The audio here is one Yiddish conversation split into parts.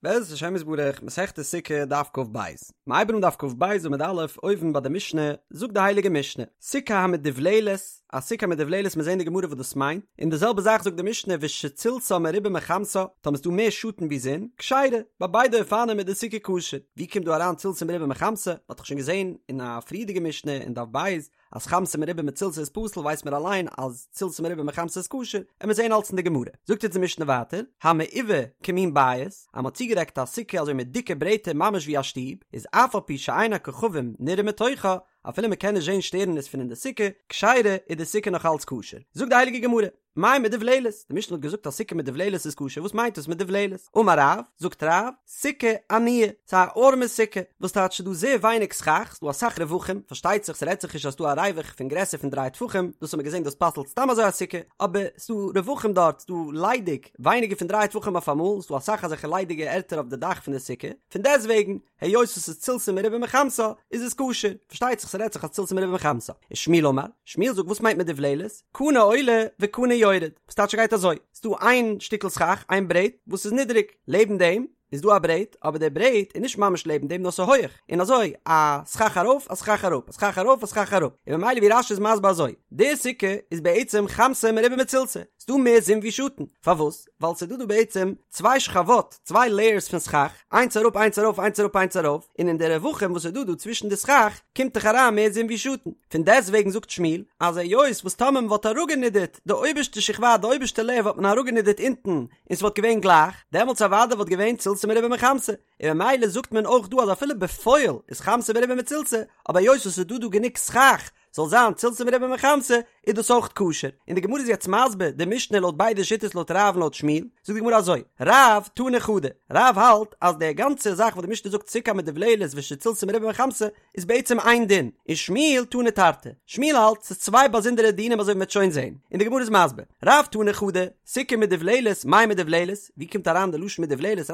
בעזרת השם יתברך, מסכת סוכה, דף כ"ב. מ'הייבן אן דף כ"ב עמוד א', אויבן ביי די משנה, זאגט די הייליגע משנה, סוכה המדובללת, א סוכה המדובללת מיר זעהן די גמרא וואס דאס מיינט, און די זעלבע זאך זאגט די משנה ושצילתה מרובה מחמתה, טאמער ס'דא מער שאטן ווי זון, כשרה, ביי ביידע אופנים איז די סוכה כשר. ווי קומט דא אריין צילתה מרובה מחמתה? מ'האט דאך שוין געזעהן אין א פריערדיגע משנה אין דף ב', אז חמתה מרובה מצילתה איז פסול ווייסט מען אליין אז צילתה מרובה מחמתה איז כשר, עמיר זעהן אלץ אין די גמרא. זאגט אונז די משנה ווייטער, המעובה כמין בית, אז מ'האט צוגעדעקט א סוכה אזוי מיט דיקע ברעטער ממש ווי א שטוב, איז אף על פי שאין הכוכבים נראים מתוכה, אפילו מ'קען נישט זעהן שטערנעס פון אין די סוכה, כשרה, איז די סוכה נאך אלץ כשר. זאגט די הייליגע גמרא. מאי מדובללת? די משנה האט געזאגט אז סוכה מדובללת איז כשר, וואס מיינט דאס מדובללת? אמר רב, זאגט רב, סוכה עניה, ס'איז א ארעמע סוכה, וואס טייטש ס'איז דא זייער ווייניג סכך, ס'איז דא אסאך רווחים, פארשטייט זיך ס'רעדט זיך נישט אז ס'איז דא א ריווח פון גרעסער פון דריי טפחים, דאס האט מען געזען דאס פסל'ט סתם אזוי א סוכה, אבער ס'איז דא רווחים דארט, ס'איז דא ליידיג, ווייניגער פון דריי טפחים אויף אמאל, ס'איז דא אסאך אזעלכע ליידיגע ערטער אויף די דאך פון די סוכה, פון דעסטוועגן, היות עס איז צילתה מרובה מחמתה, איז עס כשר. פארשטייט זיך ס'רעדט זיך אז צילתה מרובה מחמתה. ושמואל אמר, שמואל זאגט וואס מיינט מדובללת? קנה עולה וקנה יורד. וואס טייטש ס'גייט אזוי, ס'דא איין שטיקל סכך, איין ברעט, וואס איז נידעריג, לעבן דעם איז דא א ברעט, אבער דער ברעט איז נישט ממש לעבן דעם נאר ס'איז הויעך, און אזוי א סכך ארויף א סכך אראפ, א סכך ארויף א סכך אראפ, און ממילא ווי רש"י איז מסביר אזוי, די סוכה איז בעצם חמתה מרובה מצילתה, ס'דא מער זון ווי שאטן, פארוואס? ווייל ס'איז דא דא בעצם צוויי שכבות, צוויי לעיערס פון סכך, איינס אראפ איינס ארויף איינס אראפ איינס ארויף, און אין די רווחים וואס איז דא דא צווישן די סכך קומט דאך אריין מער זון ווי שאטן, פון דעסט וועגן זאגט שמואל אז היות וואס טאמער מ'וואלט אראפגענידערט די אויבערשטע שכבה די אויבערשטע לעיער וואלט מען אראפגענידערט אונטן און ס'וואלט געווען גלייך, דעמאלטס אוודאי וואלט געווען צילתה מרובה מחמתה, און ממילא זאגט מען אויך דא אז אפילו בפועל איז חמתה מרובה מצילתה, אבער היות וואס ס'איז דא דא גענוג סכך זאל זיין צילתה מרובה מחמתה, איז דאס אויך כשר. און די גמרא איז יעצט מסביר די משנה לויט ביידע שיטות לויט רב און לויט שמואל, זאגט די גמרא אזוי, רב תני חדא, רב האלט אז די גאנצע זאך וואס די משנה זאגט סוכה המדובללת ושצילתה מרובה מחמתה איז בעצם איין דין, און שמואל תני תרתי, שמואל האלט ס'איז צוויי באזונדערע דינים אזוי ווי מ'וועט שוין זען, און די גמרא איז מסביר, רב תני חדא, סוכה מדובללת, מאי מדובללת, ווי קומט אריין די לשון מדובללת,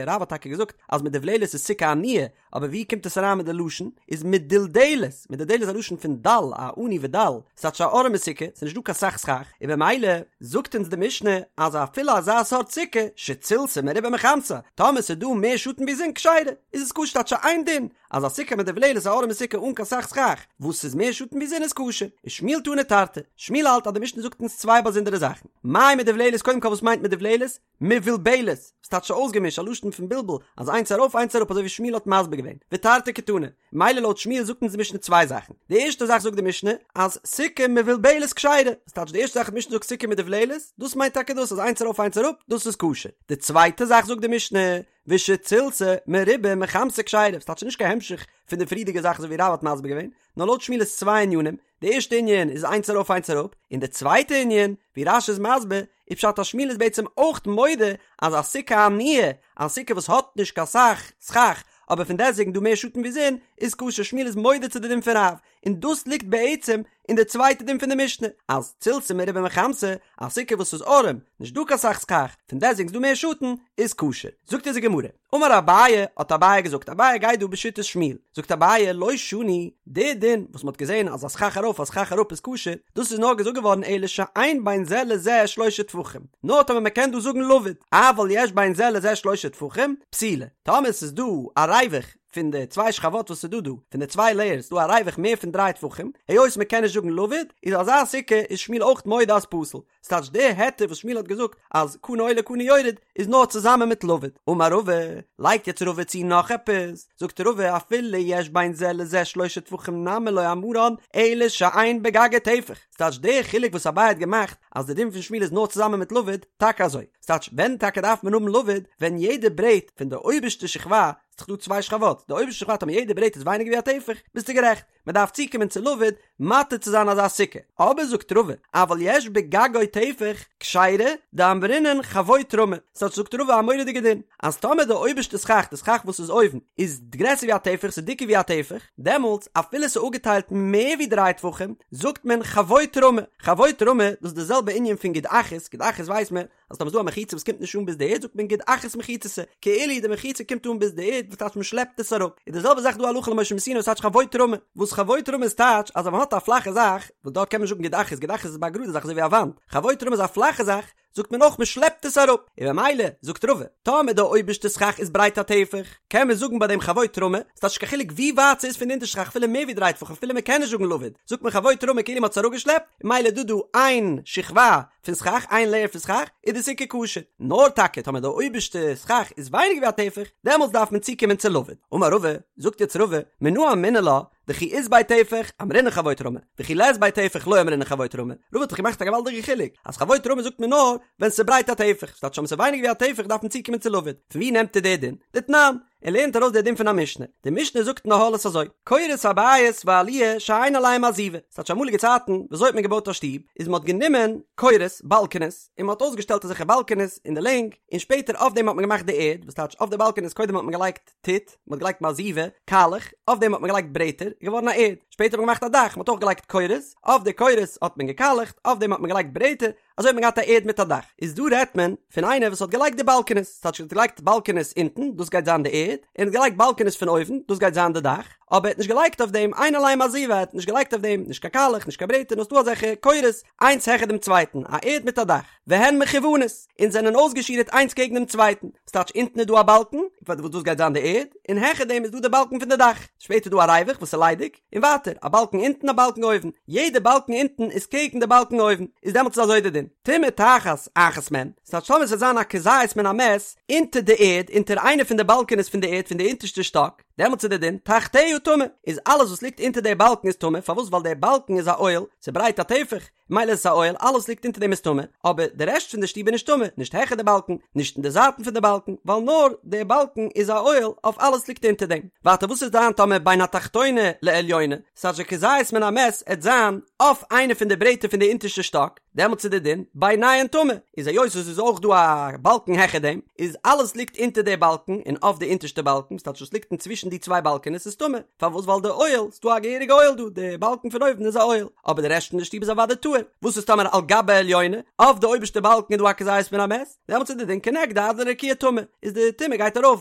רב האט טאקע געזאגט אז מדובללת איז סוכה עניה, אבער ווי קומט עס אריין מיט די לשון? איז מדולדלת, מדולדלת איז א לשון פון דל, א עני ודל, ס'טייטש א ארעמע סוכה, ס'איז נישט דא קיין סך סכך, און במילא זאגט אונז די משנה אז אפילו אזא סארט סוכה, שצילתה מרובה מחמתה, טאמער ס'איז דא מער שאטן ווי זון כשרה, איז עס כשר ס'טייטש איין דין, אז א סוכה מדובללת א ארעמע סוכה אן קיין סך סכך, וואס ס'איז מער שאטן ווי זון איז כשר, ושמואל תני תרתי, שמואל האלט אז די משנה זאגט אונז צוויי באזונדערע זאכן, מאי מדובללת קודם כל וואס מיינט מדובללת? מבולבלת, וואס טייטש אויסגעמישט, א לשון פון בלבול, אז איינס ארויף איינס אראפ אזוי ווי שמואל האט מסביר געווען, ותרתי קתני, מילא לויט שמואל זאגט אונז די משנה צוויי זאכן, די ערשטע זאך זאגט די משנה אז סוכה מבולבלת כשרה, וואס טייטש די ערשטע זאך די משנה זאגט סוכה מדובללת, דאס מיינט טאקע דאס אז איינס ארויף איינס אראפ, דאס איז כשר, די צווייטע זאך זאגט די משנה, ושצילתה מרובה מחמתה כשרה, וואס טייטש נישט קיין המשך פון די פריערדיגע זאך אזוי ווי רב האט מסביר געווען, נאר לויט שמואל איז צוויי ענינים, די ערשטע ענין איז איינס ארויף איינס אראפ, און די צווייטע ענין, ווי רש"י איז מסביר, איז פשט אז שמואל איז בעצם אויך מודה אז א סוכה עניה, א סוכה וואס האט נישט קיין סך סכך, אבער פון דעסטוועגן דא מער שאטן ווי זון, איז כשר, שמואל איז מודה צו די דין פון רב, און דאס ליגט בעצם אין די צווייטע דין פון די משנה, אז צילתה מרובה מחמתה, א סוכה וואס איז ארעם, נישט דא קיין סך סכך, פון דעסטוועגן איז דא מער שאטן, איז כשר. זאגט אונז די גמרא. אמר אביי, האט אביי געזאגט, אביי גייט דא בשיטת שמואל, זאגט אביי, לא שנו, די דין וואס מ'האט געזען אז א סכך ארויף א סכך אראפ איז כשר, דאס איז נאר געזאגט געווארן אלא שאין בין זה לזה שלושה טפחים, נאר טאמער מ'קען דא זאגן לבוד, אבל יש בין זה לזה שלושה טפחים, פסולה, טאמער ס'איז דא א ריווח פון די צוויי שכבות וואס איז דא דא, פון די צוויי לעיערס איז דא א ריווח מער פון דריי טפחים, היות מ'קען נישט זאגן לבוד, איז אזא סוכה איז שמואל אויך מודה אז פסול. ס'טייטש די היתר וואס שמואל האט געזאגט אז קנה עולה קנה יורד איז נאר צוזאמען מיט לבוד. אמר רבא, לייגט יעצט רבא צו נאך עפעס, זאגט רבא אפילו יש בין זה לזה שלושה טפחים נמי לא אמרן אלא שאין בגגו טפח, ס'טייטש די חילוק וואס אביי האט געמאכט אז די דין פון שמואל איז נאר צוזאמען מיט לבוד, טאקע אזוי, ס'טייטש ווען טאקע דארף מען האבן לבוד ווען יעדע ברעט פון די אויבערשטע שכבה, ס'דאך דא צוויי שכבות, די אויבערשטע שכבה טאמער יעדע ברעט איז ווייניגער ווי א טפח, ביסטו גערעכט. מען דארף צוקומען צו לבוד מתיר צו זיין אזא סוכה, אבער זאגט רבא, אבל יש בגגו טפח כשרה דאמרינן חבוט רמי, ס'טייטש זאגט רבא א מורא'דיגע דין, אז טאמער די אויבערשטע סכך, די סכך וואס איז אויבן, איז גרעסער ווי א טפח, ס'איז דיקער ווי א טפח, דעמאלטס אפילו ס'איז אפגעטיילט מער ווי דריי טפחים, זאגט מען חבוט רמי, חבוט רמי, דאס איז די זעלבע ענין פון גוד אחית, גוד אחית ווייסט מען, אז טאמער איז דא א מחיצה וואס קומט נישט אן ביז די ערד זאגט מען גוד אחית מחיצתא, כאילו די מחיצה קומט אן ביז די ערד וואס טייטש מען שלעפט עס אראפ, איז די זעלבע זאך דא הלכה למשה מסיני וואס טייטש חבוט רמי, וואס חבוט רמי איז טייטש אז ווען מען האט א פלאכע זאך, וואס דארט קען מען נישט זאגן גוד אחית, גוד אחית איז ביי א גראדע זאך אזוי ווי א וואנט, חבוט רמי איז א פלאכע זאך, זאגט מען אויך מען שלעפט עס אראפ, און במילא זאגט רבא, טאמער די אויבערשטע סכך איז ברייט א טפח, קען מען זאגן ביי דעם חבוט רמי, ס'טייטש נישט קיין חילוק ווי ווייט ס'איז פון די אונטערשטע סכך אפילו מער ווי דריי טפחים אפילו מען קען נישט זאגן לבוד, זאגט מען חבוט רמי כאילו מען האט עס אראפגעשלעפט, און ממילא איז דא דא איין שכבה פון סכך, איין לעיער פון סכך, איז די סוכה כשר. נאר טאקע טאמער די אויבערשטע סכך איז ווייניגער ווי א טפח, דעמאלטס דארף מען צוקומען צו לבוד. אמר רבא, זאגט יעצט רבא, מנא אמינא לה, דכי אית ביה טפח, אמרינן חבוט רמי, וכי לית ביה טפח לא אמרינן חבוט רמי. רבא האט דאך געמאכט א געוואלדיגע חילוק, אז חבוט רמי זאגט מען נאר ווען ס'איז ברייט א טפח, ס'טייטש אז ס'איז ווייניגער ווי א טפח דארף מען צוקומען צו לבוד. פון ווי נעמט ער די דין? דתנן. ער לערנט ארויס די דין פון א משנה. די משנה זאגט אין אהלות אזוי, קורות הבית והעליה שאין עליהם מעזיבה. ס'טייטש אמאליגע צייטן, וויאזוי האט מען געבויט א שטוב, איז מ'האט גענומען קורות, באלקענעס, און מ'האט אויסגעשטעלט אזעלכע באלקענעס אין די לענג, און שפעטער אויף דעם האט מען געמאכט די ערד, וואס טייטש אויף די באלקענעס קודם האט מען געלייגט טיט, מ'האט געלייגט מעזיבה, קאלעך, אויף דעם האט מען געלייגט ברעטער, איז געווארן א ערד, שפעטער האט מען געמאכט א דאך, מ'האט אויך געלייגט קורות, אויף די קורות האט מען געקאלעכט, אויף דעם האט מען געלייגט ברעטער, אזוי האט מען געהאט א ערד מיט א דאך. איז דא רעדט מען פון איינער וואס האט געלייגט די באלקענעס, ס'טייטש ער האט געלייגט באלקענעס אונטן, דאס גייט זיין די ערד, און ער האט געלייגט באלקענעס פון אויבן, דאס גייט זיין די דאך, אבער ער האט נישט געלייגט אויף דעם אין עליהם מעזיבה, ער האט נישט געלייגט אויף דעם נישט קיין קאלעך, נישט קיין ברעטער, נאר ס'דא אזעלכע קורות, איינס העכער דעם צווייטן, א ערד מיט א דאך. והן מכוונות, און זענען אויסגעשירעט איינס קעגן דעם צווייטן, ס'טייטש אונטן איז דא א באלקן, וואס דאס גייט זיין די ערד, און העכער דעם איז דא די באלקן פון די דאך, שפעטער איז דא א ריווח וואס איז ליידיג, און ווייטער, א באלקן אונטן א באלקן אויבן, יעדע באלקן אונטן איז קעגן די באלקן אויבן, איז דעמאלטס איז אזוי די דין, טומאה תחת אחת מהן, ס'טייטש טאמער ס'וועט זיין א כזית מן המת אונטער די ערד, אונטער איינע פון די באלקענעס פון די ערד פון די אונטערשטע שטאק, דעמאלטס איז די דין, תחתיה טמא, איז אלעס וואס ליגט אונטער די באלקן איז טמא, פארוואס ווייל די באלקן איז א אוהל, ס'ברייט א טפח, מילא איז עס א אוהל, אלעס ליגט אונטער דעם איז טמא, אבער די רעשט פון די שטוב איז נישט טמא, נישט העכער די באלקן, נישט אין די זייטן פון די באלקן, ווייל נאר די באלקן איז א אוהל אויף אלעס ליגט אונטער דעם. ווייטער וואס וועט זיין טאמער בין התחתונה לעליונה, ס'טייטש די כזית מן המת עט זיין אויף איינע פון די ברעטער פון די אונטערשטע שטאק, דעמאלטס איז די דין ביניהן טמא, איז היות עס איז אויך דא א באלקן העכער דעם, איז אלעס ליגט אונטער די באלקן און אויף די אונטערשטע באלקן, ס'טייטש וואס ליגט אינצווישן די צוויי באלקענעס איז טמא. פארוואס ווייל די אוהל, ס'דא א געהעריגע אוהל דא, די באלקן פון אויבן איז א אוהל, אבער די רעשט פון די שטוב איז אוודאי טהור, וואס איז טאמער על גבי העליונה, אויף די אויבערשטע באלקן איז דא א כזית מן המת, דעמאלטס איז די דין כנגדה עד לרקיע טמא, איז די טומאה גייט ארויף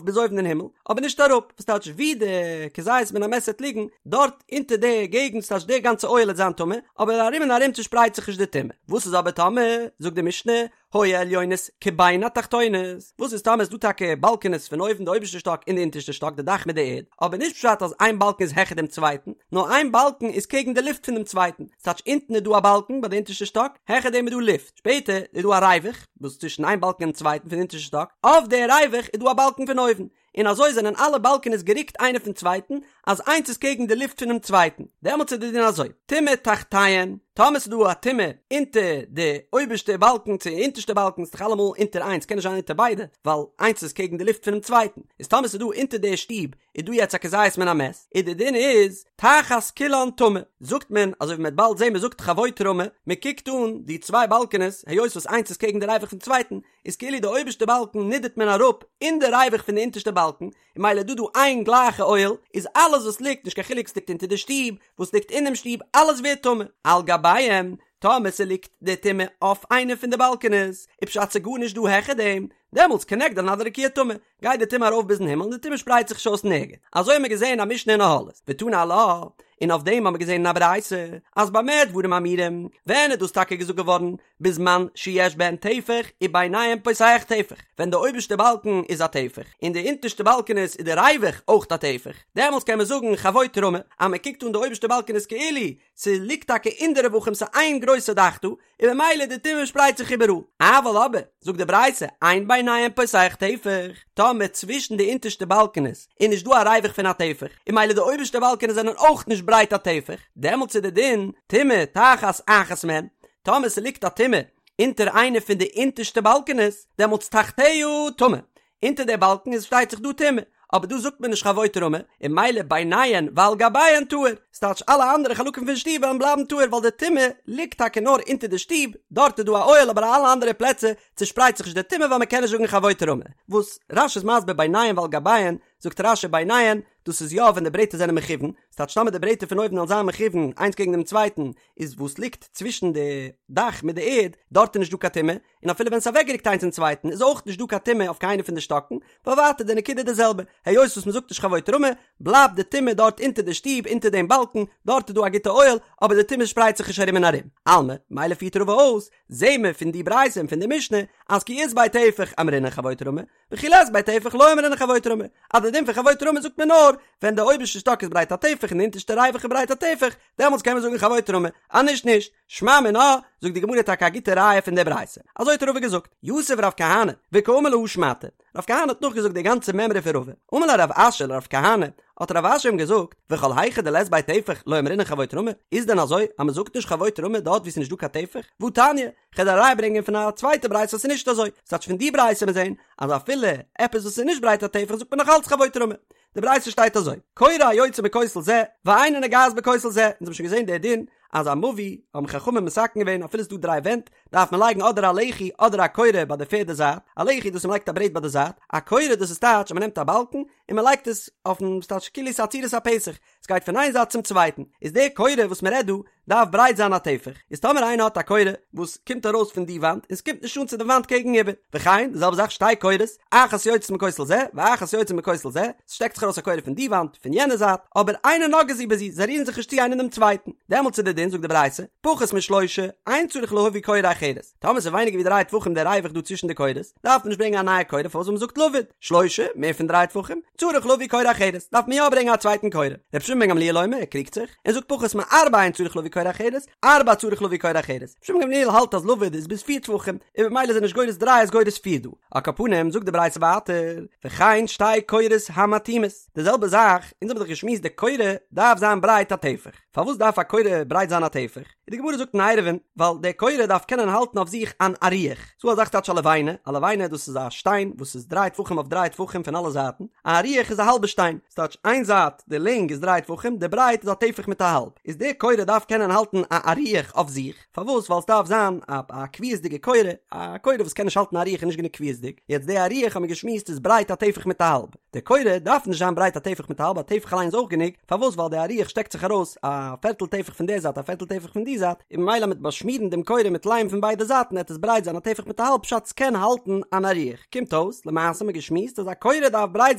ביז אויבן אין הימל, אבער נישט אראפ, וואס טייטש ווי די כזית מן המת וועט ליגן, דארט אונטער די געגנט ס'טייטש די גאנצע אוהל וועט זיין טמא, אבער ארום און ארום צושפרייט זיך נישט די טומאה, וואס איז אבער טאמער, זאגט די משנה, היו העליונות כבין התחתונות, וואס איז טאמער איז דא טאקע באלקענעס פון אויבן די אויבערשטע שטאק און די אונטערשטע שטאק די דאך מיט די ערד, אבער נישט פשט אז איין באלקן איז העכער דעם צווייטן, נאר איין באלקן איז קעגן די לופט פון דעם צווייטן, ס'טייטש אונטן איז דא א באלקן ביי די אונטערשטע שטאק, העכער דעם איז דא לופט, שפעטער איז דא א ריווח וואס צווישן איין באלקן און דעם צווייטן פון די אונטערשטע שטאק, אויף די ריווח איז דא א באלקן פון אויבן, און אזוי זענען אלע באלקענעס גערוקט איינער פון צווייטן, אז איינס איז קעגן די לופט פונעם צווייטן, דעמאלטס איז די דין אזוי, טומאה תחתיהן, טאמער ס'איז דא א טומאה אונטער די אויבערשטע באלקן צו אונטערשטע באלקן, ס'איז דאך אלעמאל אונטער איינס, קען נישט זיין אונטער ביידע, ווייל איינס איז קעגן די לופט פונעם צווייטן, איז טאמער ס'איז דא אונטער די שטוב איז דא יעצט א כזית מן המת, איז די דין איז, תחת כולן טמא, זאגט מען, אזוי ווי מ'וועט באלד זען מ'זאגט חבוט רמי, מ'קוקט אן די צוויי באלקענעס, היות וואס איינס איז קעגן די ריווח פון צווייטן, איז כאילו די אויבערשטע באלקן נידערט מען אראפ אין די ריווח פון די אונטערשטע באלקן, און מילא איז דא דא איין גלייכע אוהל, איז אלעס וואס ליגט, נישט קיין חילוק ס'ליגט אונטער די שטוב, וואס ליגט אינעם שטוב, אלעס ווערט טמא. על גביהם, טאמער ס'ליגט די טומאה אויף איינע פון די באלקענעס, איז פשט ס'גארנישט דא העכער דעם, דעמאלטס כנגדן עד הרקיע טמא, גייט די טומאה ארויף ביזן הימל און די טומאה שפרייט זיך נישט אויס נערגעץ. אזוי האבן מיר געזען א משנה אין אהלות, ותנא עלה, און אויף דעם האבן מיר געזען אין א ברייתא, אז במה דברים אמורים, ווען איז דאס טאקע געזאגט געווארן, בזמן שיש בהן טפח וביניהם פותח טפח, ווען די אויבערשטע באלקן איז א טפח און די אונטערשטע באלקענעס איז די ריווח אויך א טפח, דעמאלטס קען מען זאגן חבוט רמי, אז מען קוקט אן די אויבערשטע באלקענעס כאילו ס'ליגט טאקע אין די רווחים ס'איז איין גרויסע דאך דא, און ממילא די טומאה שפרייט זיך איבעראל. אבל אבער, זאגט די ברייתא, אין ביניהם פותח טפח, טאמער צווישן די אונטערשטע באלקענעס איז נישט דא א ריווח פון א טפח, און ממילא די אויבערשטע באלקענעס זענען אויך נישט ברייט א טפח, דעמאלטס איז די דין, טומאה תחת אחת מהן, טאמער ס'ליגט א טומאה אונטער איינע פון די אונטערשטע באלקענעס, דעמאלטס תחתיה טמא, אונטער די באלקן איז שטייט זיך דא טומאה, אבער דא זאגט מען נישט חבוט רמי, און מילא ביניהן ועל גביהן טהור, ס'טייטש אלע אנדערע חלקים פון שטוב וועלן בלייבן טהור ווייל די טומאה ליגט טאקע נאר אונטער די שטוב, דארט איז דא א אוהל אבער אלע אנדערע פלעצער צושפרייט זיך נישט די טומאה ווייל מ'קען נישט זאגן חבוט רמי. וואס רש"י איז מסביר ביניהן ועל גביהן. זאגט רש"י ביניהן, דאס איז יא ווען די ברעטער זענען מכוון, ס'טייטש טאמער די ברעטער פון אויבן וועלן זיין מכוון איינס קעגן דעם צווייטן, איז וואס ליגט צווישן די דאך מיט די ערד, דארט איז נישט דא קיין טומאה, און אפילו ווען ס'איז אוועקגערוקט איינס צום צווייטן איז אויך נישט דא קיין טומאה אויף קיינע פון די שטאקן, ווייל ווייטער די נקודה איז די זעלבע, היות וואס מ'זאגט נישט חבוט רמי, בלייבט די טומאה דארט אונטער די שטוב אונטער דעם באלקן, דארט איז דא א גוטע אוהל, אבער די טומאה שפרייט זיך נישט ארום און ארום. אלמא, מילא פירט רבא אויס, זעהן מיר פון די ברייתא און פון די משנה, אז כי אית ביה טפח אמרינן חבוט רמי, וכי לית ביה טפח לא אמרינן חבוט רמי, אז די דין פון חבוט רמי זאגט מען נאר ווען די אויבערשטע שטאק איז ברייט א טפח און די אונטערשטע ריווח איז ברייט א טפח, דעמאלטס קען מען זאגן חבוט רמי, אז נישט נישט. שמע מינה, זאגט די גמרא טאקע א גוטע ראיה פון די ברייתא. אזוי האט רבא געזאגט, יתיב רב כהנא, וקאמר להא שמעתא. רב כהנא האט נאכגעזאגט די גאנצע מימרא פון רבא. אמר ליה רב אשי לרב כהנא, האט רב אשי אים געזאגט, וכל היכא דלית ביה טפח לא אמרינן חבוט רמי, איז דען אזוי אז מען זאגט נישט חבוט רמי דארט וואו ס'איז נישט דא קיין טפח? והתניא, כ'וועל דיר א ראיה ברענגען פון א צווייטע ברייתא אז ס'איז נישט אזוי. ס'טייטש פון די ברייתא מיר זעהן אז אפילו עפעס וואס איז נישט ברייט א טפח זאגט מען נאך אלץ חבוט רמי. די ברייתא שטייט אזוי, קורה היוצאה מכותל זה, ואינה נוגעת בכותל זה, אונז האבן שוין געזען די דין אז א מבוי האבן חכמים מתקן געווען אפילו ס'איז דא דריי ווענט דארף מען לייגן אדער א לחי אדער א קורה ביי די פערדע זייט, א לחי דאס איז מ'לייגט א ברעט ביי די זייט, א קורה דאס איז טייטש אז מ'נעמט א באלקן און מ'לייגט עס אויפן ס'טייטש כאילו ס'איז א צורת הפתח, ס'גייט פון איין זייט צום צווייטן, איז די קורה וואס מ'רעדט דא דארף ברייט זיין א טפח, איז טאמער איינער האט א קורה וואס קומט ארויס פון די וואנט און ס'קומט נישט אן צו די וואנט קעגן איבער, וכן די זעלבע זאך שתי קורות, אחת יוצאת מכותל זה ואחת יוצאת מכותל זה, ס'שטעקט זיך ארויס א קורה פון די וואנט פון יענע זייט, אבער אינן נוגעות זו בזו, זיי רירן זיך נישט צו איינער דעם צווייטן, דעמאלטס איז די דין זאגט די ברייתא, פחות משלושה, אין צריך להביא קורה אחרת, טאמער ס'איז ווייניגער ווי דריי טפחים דער ריווח דא צווישן די קורות, דארף מען נישט ברענגען א נייע קורה פארוואס ווייל מ'זאגט לבוד, שלושה, מער פון דריי טפחים, צריך להביא קורה אחרת, דארף מען יא ברענגען א צווייטן קורה. רבי שמעון בן גמליאל אומר, ער קריגט זיך, און זאגט פחות מארבעה אין צריך להביא קורה אחרת, ארבעה צריך להביא קורה אחרת. רבי שמעון בן גמליאל האלט אז לבוד איז ביז פיר טפחים, און במילא איז ער נישט גורס דריי איז גורס פיר דא. על כל פנים זאגט די ברייתא ווייטער, וכן שתי קורות המתאימות, די זעלבע זאך, אונז האבן דאך געשמועסט די קורה דארף זיין ברייט א טפח, פארוואס דארף א קורה ברייט זיין א טפח? און די גמרא זאגט אין עירובין, ווייל די קורה דארף קענען האלטן אויף זיך אן אריח, ס'דא א זאך טייטש א לבנה, א לבנה דאס איז א שטיין וואס איז דריי טפחים אויף דריי טפחים פון אלע זייטן, א אריח איז א האלבע שטיין, ס'טייטש איין זייט די לענג איז דריי טפחים, די ברייט איז א טפח מיט א האלב, איז די קורה דארף קענען האלטן א אריח אויף זיך, פארוואס? ווייל ס'דארף זיין א א קביעות'דיגע קורה, א קורה וואס קען נישט האלטן א אריח איז נישט גענוג קביעות'דיג, יעצט די אריח האט מען געשמועסט איז ברייט א טפח מיט א האלב. די קורה דארף נישט זיין ברייט א טפח מיט א האלב, א טפח אליין איז אויך גענוג, פארוואס ווייל די אריח שטעקט זיך ארויס א פערטל טפח פון די זייט א פערטל טפח פון די זייט, און ממילא מיט באשמירן דעם קורה מיט ליים פון ביידע זייטן עט עס ברייט זיין א טפח מיט א האלב פשט ס'קען האלטן אן אריח, קומט אויס למעשה האט מען געשמועסט אז א קורה דארף ברייט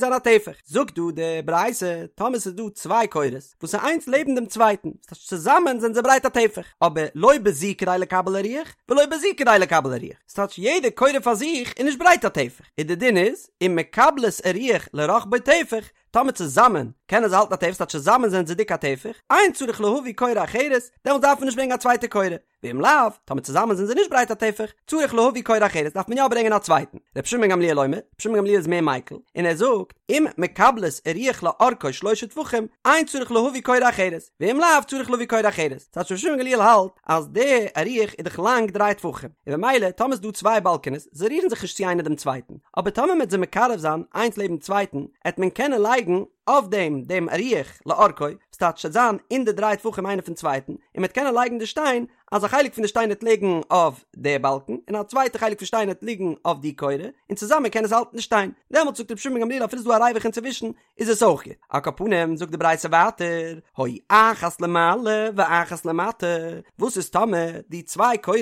זיין א טפח, זאגט דא די ברייתא טאמער ס'איז דא צוויי קורות וואס איז איינס לעבן דעם צווייטן, ס'טייטש צוזאמען זענען זיי ברייט א טפח, אבער לא בזו כדי לקבל אריח ולא בזו כדי לקבל אריח, ס'טייטש יעדע קורה פאר זיך איז נישט ברייט א טפח, און די דין איז, אם מקבלות אריח לרחבו טפח, טאמער צוזאמען קענען זיי האלטן א טפח, ס'טייטש צוזאמען זענען זיי דיק א טפח, אין צריך להביא קורה אחרת, דעמאלטס דארף מען נישט ברענגען א צווייטע קורה, ואם לאו, טאמער צוזאמען זענען זיי נישט ברייט א טפח, צריך להביא קורה אחרת, דארף מען יא ברענגען א צווייטן. רבי שמעון בן גמליאל אומר, רבי שמעון בן גמליאל איז מער מיקל, און ער זאגט, אם מקבלות אריח לאורכו שלושה טפחים, אין צריך להביא קורה אחרת, ואם לאו צריך להביא קורה אחרת. ס'טייטש רבי שמעון בן גמליאל האלט אז די אריח איז דאך לאנג דריי טפחים, און במילא טאמער איז דא צוויי באלקענעס, זיי רירן זיך נישט צו איינער דעם צווייטן, אבער טאמער מ'עט זיי מקרב זיין איינס לעבן צווייטן, עט מען קענען לייגן אויף דעם דעם אריח לאורכו, ס'טייטש ס'עט זיין אין די דריי טפחים איינער פון צווייטן, און מ'עט קענען לייגן די שטיין, אז א חלק פון די שטיין עט ליגן אויף די באלקן, און א צווייטע חלק פון שטיין עט ליגן אויף די קורה, און צוזאמען קען עס האלטן די שטיין. דעמאלטס זאגט רבי שמעון בן גמליאל אפילו ס'איז דא א ריווח אינצווישן, איז עס אויך גוט. על כל פנים זאגט די ברייתא ווייטער, היו אחת למעלה ואחת למטה, וואס איז טאמער די צוויי קורות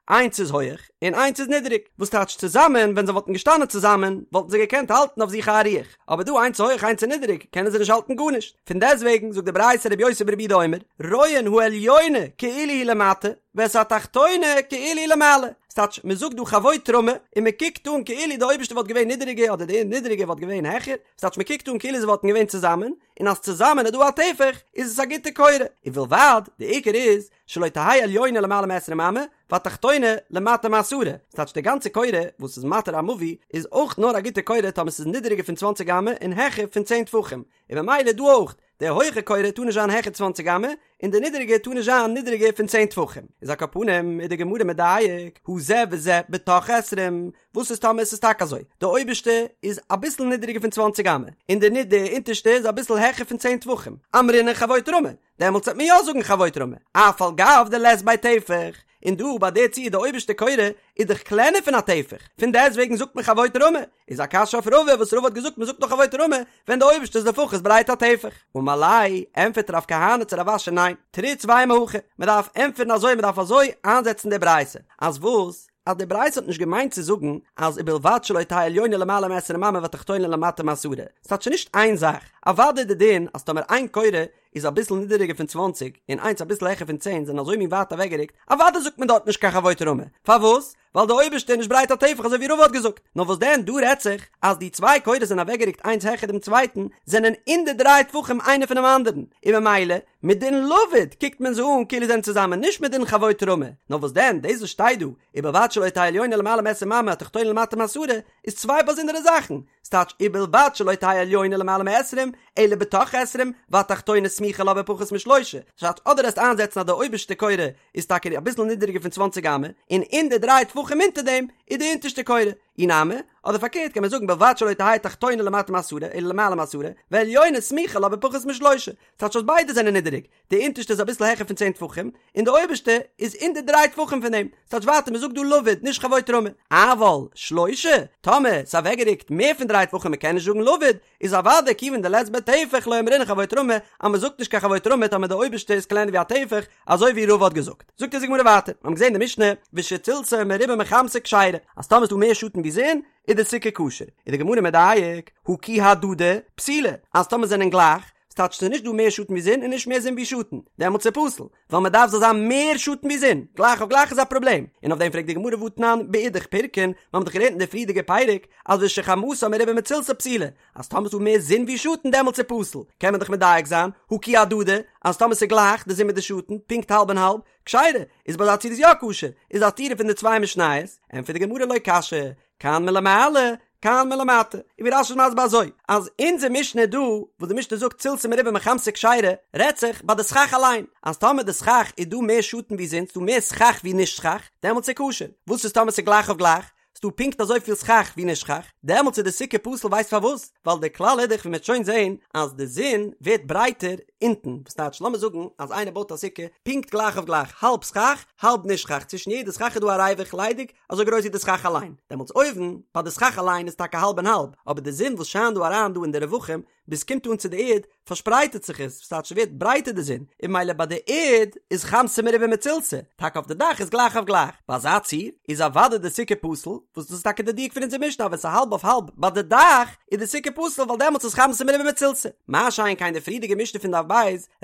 איינס איז הויעך און איינס איז נידעריג, וואס טייטש צוזאמען, ווען זיי וואלטן געשטאנען צוזאמען וואלטן זיי געקענט האלטן אויף זיך א אריח, אבער דא איינס איז הויעך איינס איז נידעריג קענען זיי נישט האלטן גארנישט, פון דעסטוועגן זאגט די ברייתא רבי יוסי ברבי יהודה אומר, רואין העליונה כאילו היא למטה, ואת התחתונה כאילו היא למעלה, ס'טייטש מ'זאגט דא חבוט רמי און מ'קוקט אן כאילו די אויבערשטע וואלט געווען נידעריגער אדער די נידעריגע וואלט געווען העכער, ס'טייטש מ'קוקט אן כאילו זיי וואלטן געווען צוזאמען, און אז צוזאמען איז דא א טפח איז עס א גוטע קורה, ובלבד, די עיקר איז, שלא תהא עליונה למעלה מעשרים אמה, והתחתונה למטה מעשרה, ס'טייטש די גאנצע קורה וואס איז מתיר א מבוי איז אויך נאר א גוטע קורה טאמער ס'איז נידעריגער פון צוואנציג אמה און העכער פון צען טפחים, און במילא דא אויך, די הויכע קורה טאר נישט זיין העכער צוואנציג אמה, און די נידעריגע טאר נישט זיין נידעריגער פון צען טפחים. איז על כל פנים איז די גמרא מדייק, הא זה וזה בתוך עשרים, וואס איז טאמער עס איז טאקע אזוי, די אויבערשטע איז אביסל נידעריגער פון צוואנציג אמה, און די די אונטערשטע איז אביסל העכער פון צען טפחים, אמרינן חבוט רמי, דעמאלטס וועט מען יא זאגן חבוט רמי, אף על גב דלית ביה טפח. און דא ביי די ציור די אויבערשטע קורה איז דאך קלענער פון א טפח, פון דעסטוועגן זאגט מען חבוט רמי, איז א קשיא אויף רבא וואס רבא האט געזאגט מען זאגט נאר חבוט רמי ווען די אויבערשטע איז לפחות ברייט א טפח. אמר ליה, ענטפערט רב כהנא צו רב אשי ניין, תריץ ואימא הכי, מען דארף ענטפערן אזוי מען דארף אזוי איינזעצן די ברייתא, אז וואס? אז די ברייתא האט נישט געמיינט צו זאגן אז ובלבד שלא תהא עליונה למעלה מעשרים אמה והתחתונה למטה מעשרה, ס'טייטש נישט איין זאך, אוודאי די דין אז טאמער איין קורה איז אביסל נידעריגער פון צוואנציג און איינס אביסל העכער פון צען זענען אזוי מין ווייט אוועקגערוקט, אוודאי זאגט מען דארט נישט קיין חבוט רמי, פארוואס? ווייל די אויבערשטע איז נישט ברייט א טפח אזוי ווי רבא האט געזאגט, נאר וואס דען דא רעדט זיך אז די צוויי קורות זענען אוועקגערוקט איינס העכער דעם צווייטן, זענען אין די דריי טפחים איינער פונעם אנדערן, און ממילא מדין לבוד קוקט מען זיי אן כאילו זענען צוזאמען נישט מדין חבוט רמי, נאר וואס דען דאס וואס שטייט דא ובלבד שלא תהא עליונה למעלה מעשרים אמה התחתונה למטה מעשרה איז צוויי באזונדערע זאכן, ס'טייטש ובלבד שלא תהא עליונה למעלה מעשרים אלא בתוך עשרים והתחתונה סמוכה לה בפחות משלושה, ס'טייטש אדער עסט איינזעצן אז די אויבערשטע קורה איז טאקע אביסל נידעריגער פון צוואנציג אמה און אין די דריי טפחים אונטער דעם איז די אונטערשטע קורה, אי נמי, אדער פארקערט קען מען זאגן בלבד שלא תהא תחתונה למטה מעשרה אלא למעלה מעשרה ועליונה סמוכה לה בפחות משלושה, ס'טייטש אז ביידע זענען נידעריג, די אונטערשטע איז אביסל העכער פון צען טפחים, און די אויבערשטע איז אין די דריי טפחים פון דעם, ס'טייטש ווייטער מ'זאגט דא לבוד נישט חבוט רמי. אבל שלושה, טאמער ס'איז אוועקגערוקט מער פון דריי טפחים מ'קען נישט זאגן לבוד, איז אוודאי כיוון דלית ביה טפח לא אמרינן חבוט רמי, אז מ'זאגט נישט קיין חבוט רמי טאמער די אויבערשטע איז קלענער ווי א טפח, אזוי ווי רבא האט געזאגט. זאגט אונז די גמרא ווייטער, מ'האבן געזען די משנה, ושצלתה מרובה מחמתה כשרה, אז טאמער איז דא מער שאטן ווי זון, איז די סוכה כשר. איז די גמרא מדייק, הא כי הדדי, פסולה, אז טאמער זענען גלייך, ס'טייטש ס'איז נישט דא מער שאטן ווי זון און נישט מער זון ווי שאטן, דעמאלטס איז פסול, ווייל מ'דארף זאל זיין מער שאטן ווי זון, גלייך אויף גלייך איז א פראבלעם, און אויף דעם פרעגט די גמרא והתנן באידך פירקא, מיר האבן דאך געלערנט אין די פריערדיגע פרק אז ושחמתה מרובה מצלתה פסולה, אז טאמער ס'איז דא מער זון ווי שאטן דעמאלטס איז פסול, קען מען דאך מדייק זיין, הא כי הדדי, אז טאמער ס'איז גלייך די זון מיט די שאטן, פונקט האלב און האלב, כשרה, איז ביי אזא ציור איז יא כשר, איז א סתירה פון די צוויי משניות, ענטפערט די גמרא לא קשיא, כאן מלמעלה, כאן מלמטה. און ווי רש"י איז מסביר אזוי, אז אונזער משנה דא, וואס די משנה זאגט צלתה מרובה מחמתה כשרה, רעדט זיך ביי די סכך אליין, אז טאמער די סכך איז דא מער שאטן ווי זון, ס'דא מער סכך ווי נישט סכך, דעמאלטס איז כשר. וואס איז טאמער ס'איז גלייך אויף גלייך, ס'דא פונקט אזויפיל סכך ווי נישט סכך, דעמאלטס איז די סוכה פסול ווייסט פארוואס? ווייל די כלל איז דאך ווי מ'וועט שוין זען אז די זון ווערט ברייטער אונטן, וואס טייטש לאמיר זאגן אז איינער בויט א סוכה פונקט גלייך אויף גלייך, האלב סכך האלב נישט סכך, צווישן יעדע סכך איז דא א ריווח ליידיג אזוי גרויס ווי די סכך אליין, דעמאלטס אויבן ביי די סכך אליין איז טאקע האלב און האלב, אבער די זון וואס שיינט דא אריין דא אין די רווחים ביז ס'קומט אן צו די ערד פארשפרייטערט זיך עס, וואס טייטש ס'ווערט ברייטער די זון, און ממילא ביי די ערד איז חמתה מרובה מצלתה, טאקע אויף די דאך איז גלייך אויף גלייך, ביי אזא ציור איז אוודאי די סוכה פסול, וואס דאס איז טאקע די דיוק פון אונזער משנה אז ווען ס'איז האלב אויף האלב ביי די דאך איז די סוכה פסול ווייל דעמאלטס איז חמתה מרובה מצלתה, מה שאין כן די פריערדיגע משנה פון דף ב'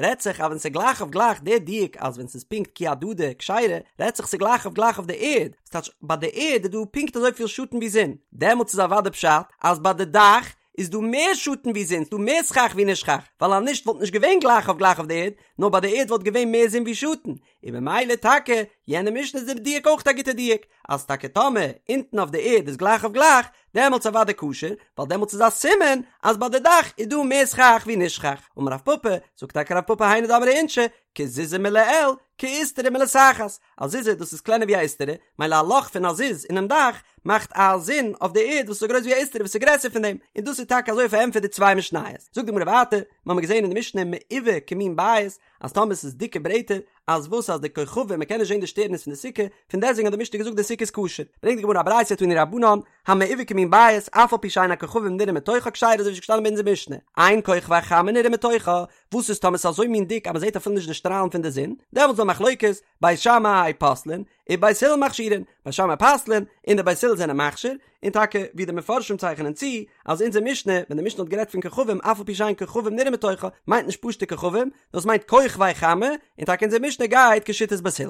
רעדט זיך אז ווען ס'איז גלייך אויף גלייך די דיוק אז ווען ס'איז פונקט כי הדדי כשרה רעדט זיך ס'איז גלייך אויף גלייך אויף די ערד, וואס טייטש ביי די ערד איז דא פונקט אזויפיל שאטן ווי זון, דעמאלטס איז אוודאי פשט אז ביי די דאך איז דא מער שאטן ווי זון, ס'דא מער סכך ווי נישט סכך, ווייל אז נישט וואלט נישט געווען גלייך אויף גלייך אויף די ערד, נאר ביי די ערד וואלט געווען מער זון ווי שאטן, און ממילא טאקע יענע משנה איז די דיוק אויך א גוטע דיוק, אז טאקע טאמער אונטן אויף די ערד איז גלייך אויף גלייך, דעמאלטס אוודאי כשר, ווייל דעמאלטס איז א סימן אז ביי די דאך איז דא מער סכך ווי נישט סכך. אמר רב פפא, זאגט טאקע רב פפא היינו דאמרי אינשי, כזוזא מלעיל, כאיסתרא מלתחת, א זוזא דאס איז קלענער ווי א איסתרא, מילא א לאך פון א זוז אינעם דאך מאכט א זון אויף די ערד וואס איז אזוי גרויס ווי א איסתרא וואס איז גרעסער פון דעם, און דאס איז טאקע אזוי פארענטפערט די צוויי משניות. זאגט די גמרא ווייטער, מיר האבן געזען אין די משנה מעובה כמין בית, אז טאמער ס'איז דיקע ברעטער, אז וואס אז די כוכבים מ'קען נישט זען די שטערנס פון די סוכה, פון דעסטוועגן האט די משנה געזאגט די סוכה איז כשר. ברענגט די גמרא א ברייתא תנו רבנן, המעובה כמין בית, אף על פי שאין הכוכבים נראים מתוכה כשרה אזוי ווי ס'איז געשטאנען ביי אונזער משנה, אין כוכבי חמה נראים מתוכה, וואס איז טאמער ס'איז אזוי מין דיק אז מ'זעט אפילו נישט די שטראלן פון די זון, דעמאלטס איז דא מחלוקת, בית שמאי פוסלין, ובית הלל מכשירין, בית שמאי פסל'ען, און די בית הלל זענען מכשיר, און טאקע ווי די מפרשים צייכענען צו, אז אונזער משנה, ווען די משנה האט גערעדט פון כוכבים אף על פי שאין כוכבים נראים מתוכה, מיינט נישט פשוט'ע כוכבים, נאר עס מיינט כוכבי חמה, און טאקע אונזער משנה גייט כשיטת בית הלל.